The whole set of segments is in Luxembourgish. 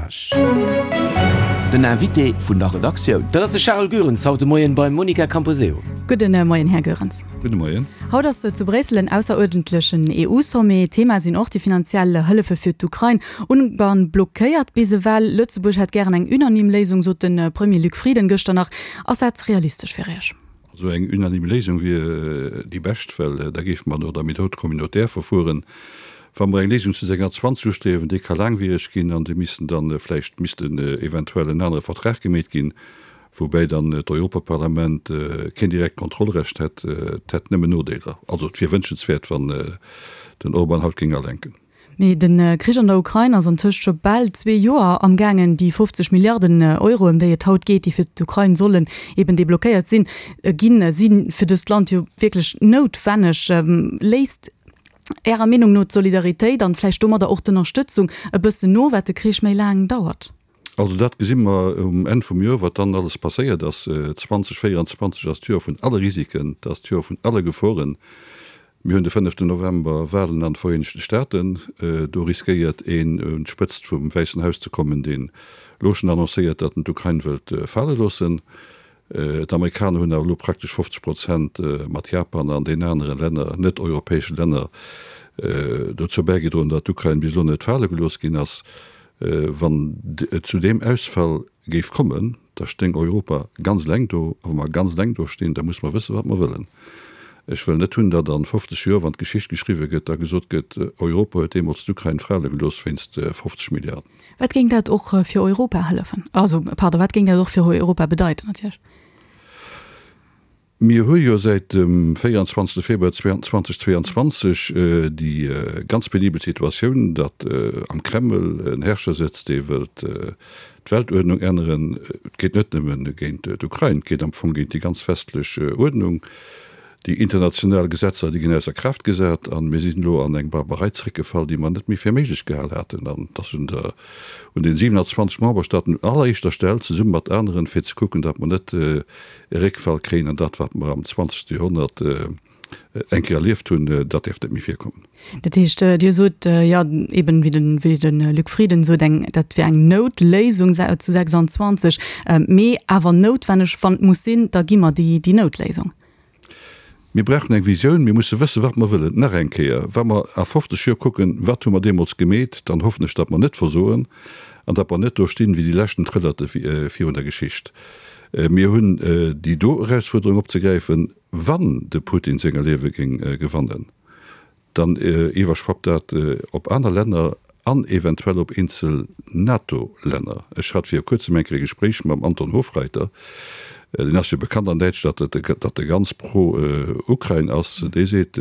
Courage. Den Invité vun der Redaktioun. Dat ass de Charel Goerens haut de Moien beim Monica Camposeo. Gudden Moien, Här Goerens. Gudde Moien. Haut ass zu Bréissel en ausseruerdentlechen EU-Sommet. Thema sinn och déi finanziell Hëllefe fir d'Ukrain. Ungarn blockéiert bis ewell. Lëtzebuerg hätt gären eng unanime Léisung, sot de Premier Luc Frieden gëschter nach. Ass dat realistesch fir Iech? Also eng unanime Léisung wier déi bescht, well da géife mer no der Méthode communautaire verfueren. Wa mer eng Léisung zu 26 ustriewen, déi ka laangwiereg ginn an déi missten dann vläicht missten eventuell en anere Vertrag gemeet ginn, woubäi dann d'Europaparlament keen direkt Kontrollrecht hätt. Et hätt nëmmen Nodeeler. Also et wier wënschenswäert, wann den Orban haut géing alenken. Mee de Krich an der Ukrain ass antëscht scho bal zwee Joer am gaangen. Déi 50 Milliarden Euro, ëm déi et haut geet, déi fir d'Ukrain sollen eben deblockéiert sinn, ginn, si fir dëst Land jo wierklech noutwenneg. Léisst Ärer Meenung no d'Solidaritéit an vläicht domadder och d'Ënnerstëtzung e bëssen no, wat de Krich méi laang dauert? Also dat gesi mer um Enn vum Joer, wat dann alles passéiert ass. 2024 ass d'Joer vun alle Risiken, et ass d'Joer vun alle Geforen. Mir hunn de fënneften November Walen an de Vereenegte Staaten. Do riskéiert een un d'Spëtzt vum Wäissen Haus ze kommen, deen elo schonn annoncéiert, datt en d'Ukrain wëllt fale loossen. D'Amerikaner hunn awer elo praktesch 50 Prozent mat Japan an den anere Länner, net-europäesche Länner, dozou bäigedroen, datt d'Ukrain bis elo net fale gelooss ginn ass. Wann et zu deem Ausfall géif kommen, da stéing Europa ganz eleng do. A wa mer ganz eleng do stinn, da musse mer wëssen, wat mer wëllen. Ech wëll net hunn, datt a 50 Joer, wann d'Geschicht geschriwwe gëtt, da gesot gëtt, Europa huet deemools d'Ukrain fale gelooss wéinst 50 Milliarden. Wat géing dat och fir Europa hëllefen? Also, pardon, wat géing dat och fir Europa bedeiten natierlech? Mir hu jo säit dem 24. Februar 2022 déi ganz penibel Situatioun, datt am Kreml en Herrscher sëtzt, dee wëllt d'Weltuerdnung änneren. Et geet net nëmme géint d'Ukrain, et geet am Fong géint déi ganz westlech Uerdnung. Déi international Gesetzer, déi ginn ausser Kraaft gesat a mir sinn elo an eng Barbarei zréckgefall, déi mer net méi fir méiglech gehal haten. An et ass un der, un den 27 Memberstaaten un alleréischter Stell, zesumme mat aneren, fir ze kucken, datt mer net e Réckfall kréien an dat, wat mer am zwanzegste Joerhonnert eng Kéier erlieft hunn, dat däerf net méi virkommen. Dat heescht, Dir sot, jo, eben wéi de, wéi de Luc Frieden sot, eng, dat wier eng Noutléisung zu 26, mee awer noutwenneg, wann et muss sinn, da gi mer déi, déi Noutléisung. Mir brauchen eng Visioun, mir musse wëssen, wat mer wëllen. Nach eng Kéier, wa mer a 50 Joer kucken, wat hu mer deemools gemeet, dann hoffen ech, datt mer net versoen an datt mer net do stinn wéi déi leschten Trëllerte virun der Geschicht. Mir hunn déi do Erausfuerderung opzegräifen, wann de Putin senger Liewe géing gewannen. Dann iwwerschwappt dat op aner Länner an eventuell op eenzel NATO-Länner. Ech hat viru kuerzem eng Kéier e Gespréich mam Anton Hofreiter, deen ass jo bekannt an Däitschland, datt e ganz pro-Ukrain ass. Dee seet,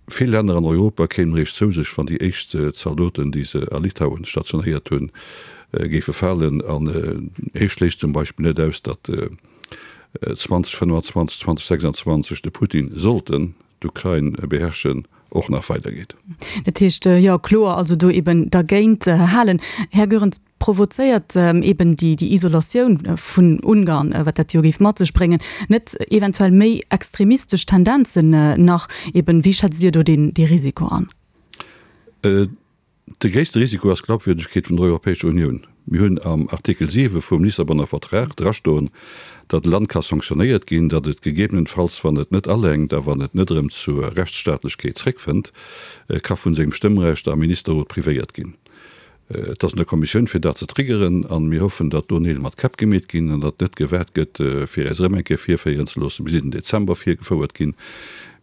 vill Länner an Europa kéimen eréischt zou sech, wann déi éischt Zaldoten, déi se a Litauen stationéiert hunn, géife falen. An hie schléisst zum Beispill net aus, datt 2025, 2026 de Putin sollten d'Ukrain beherrschen, och nach weidergeet. Dat heescht, jo, kloer also do eben dergéint halen. Här Goerens, provozéiert eben déi Isolatioun vun Ungarn, wat dat jo géif mat sech bréngen, net eventuell méi extremistesch Tendenzen nach eben? Wéi schätzt Dir do dee Risiko an? De gréisste Risiko ass d'Glaubwürdegkeet vun der Europäescher Unioun. Mir hunn am Artikel 7 vum Lissabonner Vertrag drastoen, datt e Land ka sanktionéiert ginn, datt et gegebenenfalls, wann et net alenkt a wann et net erëm zur Rechtsstaatlechkeet zréckfënnt, ka vun sengem Stëmmrecht am Ministerrot privéiert ginn. Et ass un der Kommissioun, fir dat ze triggeren, a mir hoffen, datt do Neel mat Käpp gemeet ginn an datt net gewaart gëtt, fir äis erëm eng Kéier virféieren ze loossen. Mir sinn den Dezember virgefouert ginn.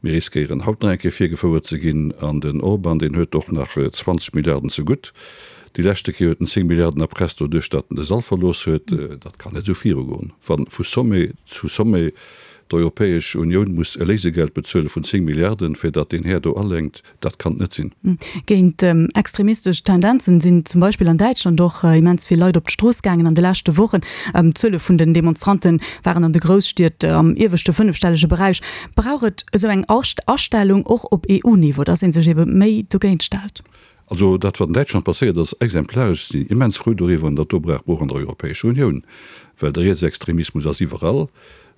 Mir riskéieren haut nach eng Kéier virgefouert ze ginn. An den Orban, deen huet och nach 20 Milliarden zegutt. Déi leschte Kéier huet en 10 Milliarden erpresst doduerch, datt en de Sall verlooss huet. Dat kann net esou virugoen, wa vu Sommet zu Sommet d'Europäesch Unioun muss e Léisegeld bezuele vun 10 Milliarden, fir datt deen Här do alenkt. Dat kann et net sinn. Géint extremistesch Tendenzen sinn zum Beispill an Däitschland och immens vill Leit op d'Strooss gaangen an de leschte Wochen. D'Zuele vun den Demonstrante waren an de Grousstied am ieweschte fënnefstellege Beräich. Brauch et esou eng Astellung och op EU-Niveau, datt ee sech ebe méi dogéint stellt? Also dat, wat an Däitschland passéiert ass, exemplaresch. Ech sinn immens frou doriwwer an dat do brauch mer och an der Europäescher Unioun, well de Rietsextremismus ass iwwerall.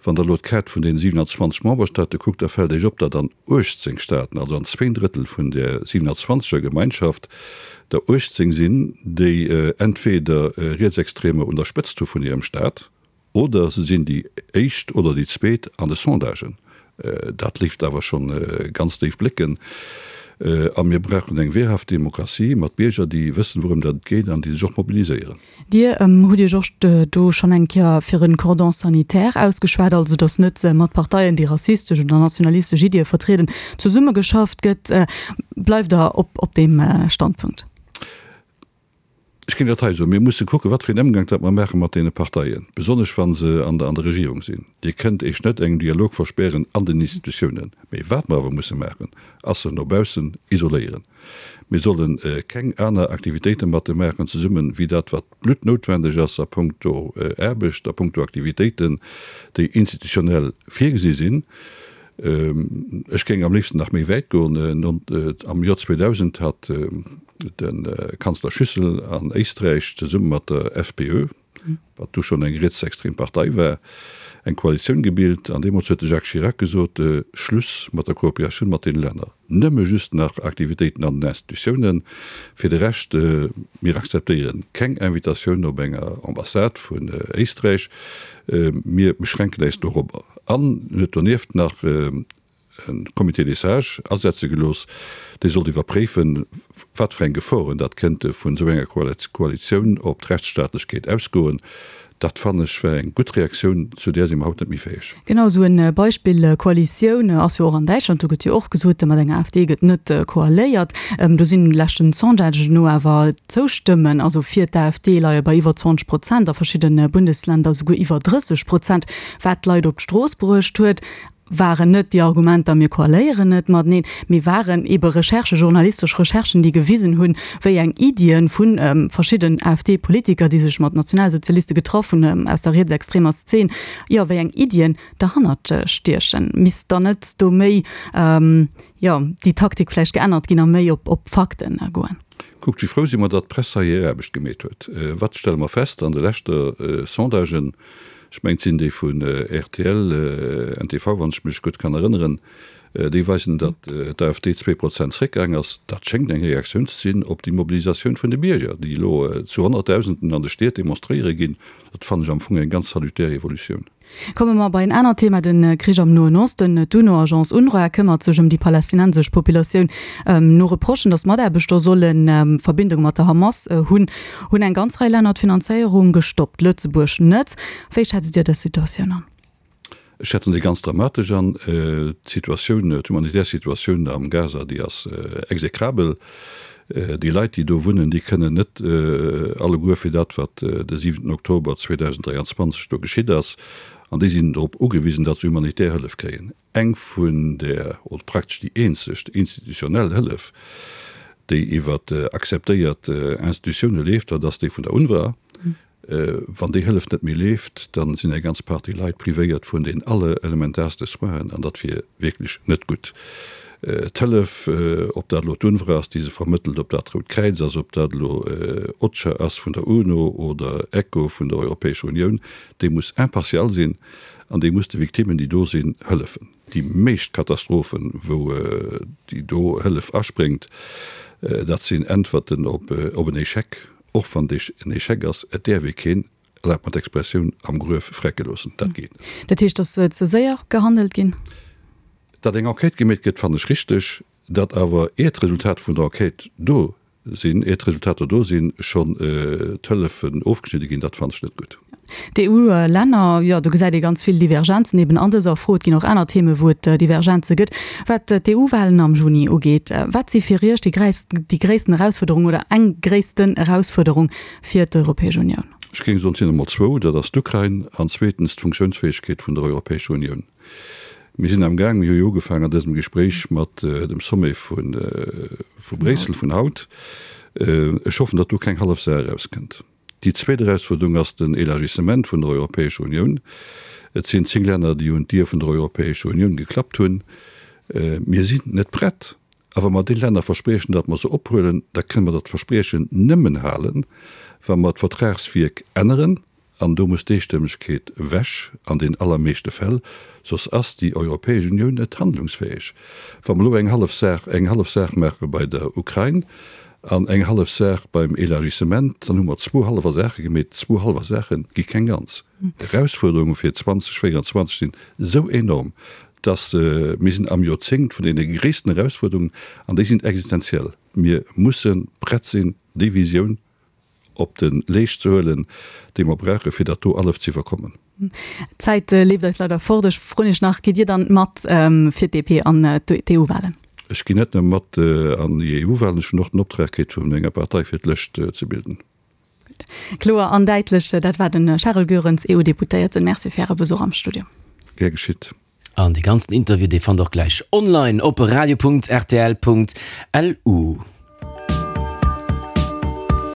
Wann Der elo d'Kaart vun deene 27 Memberstaate kuckt, da fält Iech op, datt an 18 Staaten, also an zwéin Drëttel vun där 27 er Gemeinschaft, der 18 sinn, déi entweder Rietsextremer un der Spëtzt hu vun hirem Staat, oder se sinn déi éischt oder déi zweet an de Sondagen. Dat léisst awer schonn ganz déif blécken. A mir brauchen eng wehrhaft Demokratie mat Bierger, déi wëssen, wourëm dat et geet an déi sech och mobiliséieren. Dir hutt Iech och do schonn eng Kéier fir e Cordon sanitaire ausgeschwat, also datt net mat Parteien, déi rassistesch oder nationalistesch Iddie vertrieden, zesummegeschafft gëtt. Bleift Der op deem Standpunkt? Ech géing dat hei soen, Mir musse kucken, wat fir een Ëmgank dat mer maache mat deene Parteien, besonnesch wa se an der Regierung sinn. Dir kënnt Iech net engem Dialog verspären an den Institutiounen. Mee wat mer awer musse maachen, ass se no baussen isoléieren. Mir solle keng aner Aktivitéite mat de maachen zesummen, wéi dat, wat bluttnoutwendeg ass a puncto Aarbecht, a puncto Aktivitéiten, déi institutionell virgesi sinn. Ech géing am léifsten nach méi wäit goen. Am Joer 2000 hat de Kanzler Schüssel an Éisträich zesumme mat der FPÖ, wat du schonn eng rietsextrem Partei war, eng Koalitioun gebilt. An deemools huet de Jacques Chirac gesot, Schluss mat der Kooperatioun mat deene Länner, nëmme just nach Aktivitéiten an den Institutiounen. Fir de Rescht, mir akzeptéiere keng Invitatioun op enger Ambassade vun Éisträich, mir beschränken äis dorobber. An en huet donieft nach e Comité des sages asetze gelooss, dee sollt iwwerpréifen, wat fir eng Geforen dat kënnte vun esou enger Koalitioun op d'Rechtsstaatlechkeet ausgoen. Dat, fannen ech, war eng gutt Reaktioun, zu där si mer haut net méi fäeg. Genau esou e Beispill Koalitioun ass jo och an Däitschland. Do gëtt jo och gesot, mat enger AfD gëtt net koaléiert. Do sinn leschten Sondagen no awer d'Zoustëmmen, also fir d'AfD, leie bei iwwer 20 Prozent, a verschidde Bundesländer esouguer iwwer 30 Prozent. Wat d'Leit op d'Strooss bruecht huet, waren net déi Argumenter, mir koaléieren net mateneen, mee waren ebe Recherchen, journalistesch Recherchen, déi gewisen hunn, wéi eng Iddien vu verschidden AfD-Politiker, déi sech mat Nationalsozialiste getraff hunn, aus der rietsextremer Szen, jo, wéi eng Iddien derhannert stiechen. Misst dann net do méi, jo, déi Taktik vläicht geännert ginn a méi op Fakten goen? Kuckt, wéi frou si mer, datt d'Press hei hir Aarbecht gemeet huet. Wat stelle mer fest an de leschte Sondagen? Ech mengen, et sinn déi vun rtl, ntv, wann ech mech gutt kann erënneren, déi weisen, datt d'AfD 2 Prozent zréckgaang ass. Dat schéngt eng Reaktioun ze sinn op déi Mobilisatioun vun de Bierger, déi elo zu Honnertdausenden an de Stied demonstréiere ginn. Dat fannen ech am Fong eng ganz salutär Evolutioun. Komme mer bei en anert Thema, de Krich am Noen Osten. D'UNO-Agence UNRWA këmmert sech ëm déi palästinensesch Populatioun. No Reprochen, datt Mataarbechter solle Verbindunge mat der Hamas hunn, hunn eng ganz Rei Länner d'Finanzéierung gestoppt, Lëtzebuerg net. Wéi schätzt Dir dës Situatioun an? Ech schätzen déi ganz dramatesch an. D'Situatioun, d'humanitär Situatioun am Gaza, déi ass execrabel. Déi Leit, déi do wunnen, déi kënnen net alleguer fir dat, wat de siwenten Oktober 2023 do geschitt ass. An déi sinn drop ugewisen, datt se humanitär Hëllef kréien. Eng vun der, oder praktesch déi eenzeg institutionell Hëllef, déi iwwer akzeptéiert Institutioune leeft, dat ass déi vun der UNRWA. Wann déi Hëllef net méi leeft, da sinn eng ganz Partie Leit privéiert vun den allerelementarste Soinen, an dat wier wierklech net gutt. D'Hëllef, ob dat elo d'UNRWA ass, déi se vermëttelt, ob dat d'Rout Kräiz ass, ob dat elo OCHA ass vun der UNO oder ECHO vun der Europäescher Unioun, déi muss impartial sinn. An déi muss de Victimmen, déi do sinn, hëllefen. Déi meescht Katastrophen, wou déi do Hëllef aspréngt, dat sinn Äntwerten op en Échec. Och wann et en Échec ass, et däerf ee keen, erlaabt mer d'Expressioun, am Gruef vrecke loossen. Dat geet net. Dat heescht, et ass ze séier gehandelt ginn? Datt eng Enquête gemeet gëtt, fannen ech richteg. Datt awer, ier d'Resultat vun der Enquête do sinn, ier d'Resultater do sinn, schonn d'Hëllefen ofgeschnidde ginn, dat fannen ech net gutt. D'EU-Länner, jo, do gesäit ee ganz vill Divergenzen eben an dëser Fro. Et ginn och aner Themen, wou et Divergenze gëtt. Wat d'EU-Wahlen am Juni ugeet, wat si fir Iech déi déi gréissten Erausfuerderung oder eng gréissten Erausfuerderung fir d'Europäesch Unioun? Ech géing soen, et sinn emol zwou, dat ass d'Ukrain an zweetens d'Funktiounsfäegkeet vun der Europäescher Unioun. Mir sinn am Gaang, mir hu jo ugefaangen an dësem Gespréich mat dem Sommet vu Bréissel vun haut. Ech hoffen, datt do keng hallef Saach erauskënnt. Déi zweet Erausfuerderung ass den Élargissement vun der Europäescher Unioun. Et sinn 10 Länner, déi un d'Dier vun der Europäescher Unioun geklappt hunn. Mir sinn net prett. A wa mer deene Länner verspriechen, datt mer se ophuelen, da kënne mer dat Verspriechen nëmmen halen, wa mer d'Vertragswierk änneren. An do muss d'Eestëmmegkeet ewech an den allermeeschte Fäll, soss ass déi Europäesch Unioun net handlungsfäeg. Wa mer elo eng hallef Saach, eng hallef Saach maache bei der Ukrain an eng hallef Saach beim Élargissement, dann hu mer zwou hallwer Saache gemeet. Zwou hallwer Saache gi keng ganz. D'Erausfuerderunge fir 2024 sinn esou enorm, dass mir sinn am Joerzéngt vun deene gréissten Erausfuerderungen an déi sinn existenziell. Mir musse prett sinn, déi Visioun op de Leescht ze huelen, déi mer brauchen, fir dat do alles ze iwwerkommen. D'Zäit leeft eis leider fort. Ech froen Iech nach, Gitt Dir dann mat fir d'DP an d'EU-Wahlen? Ech ginn net nëmme mat an déi EU-Wahlen, ech hunn och den Optrag kritt vun menger Partei, fir d'Lëscht ze bilden. Gutt. Kloer an däitlech. Dat war de Charel Goerens, EU-Deputéierten. Merci fir Äre Besuch am Studio. Gär geschitt. An dee ganzen Interview, dee fannt der och gläich online op radio.rtl.lu.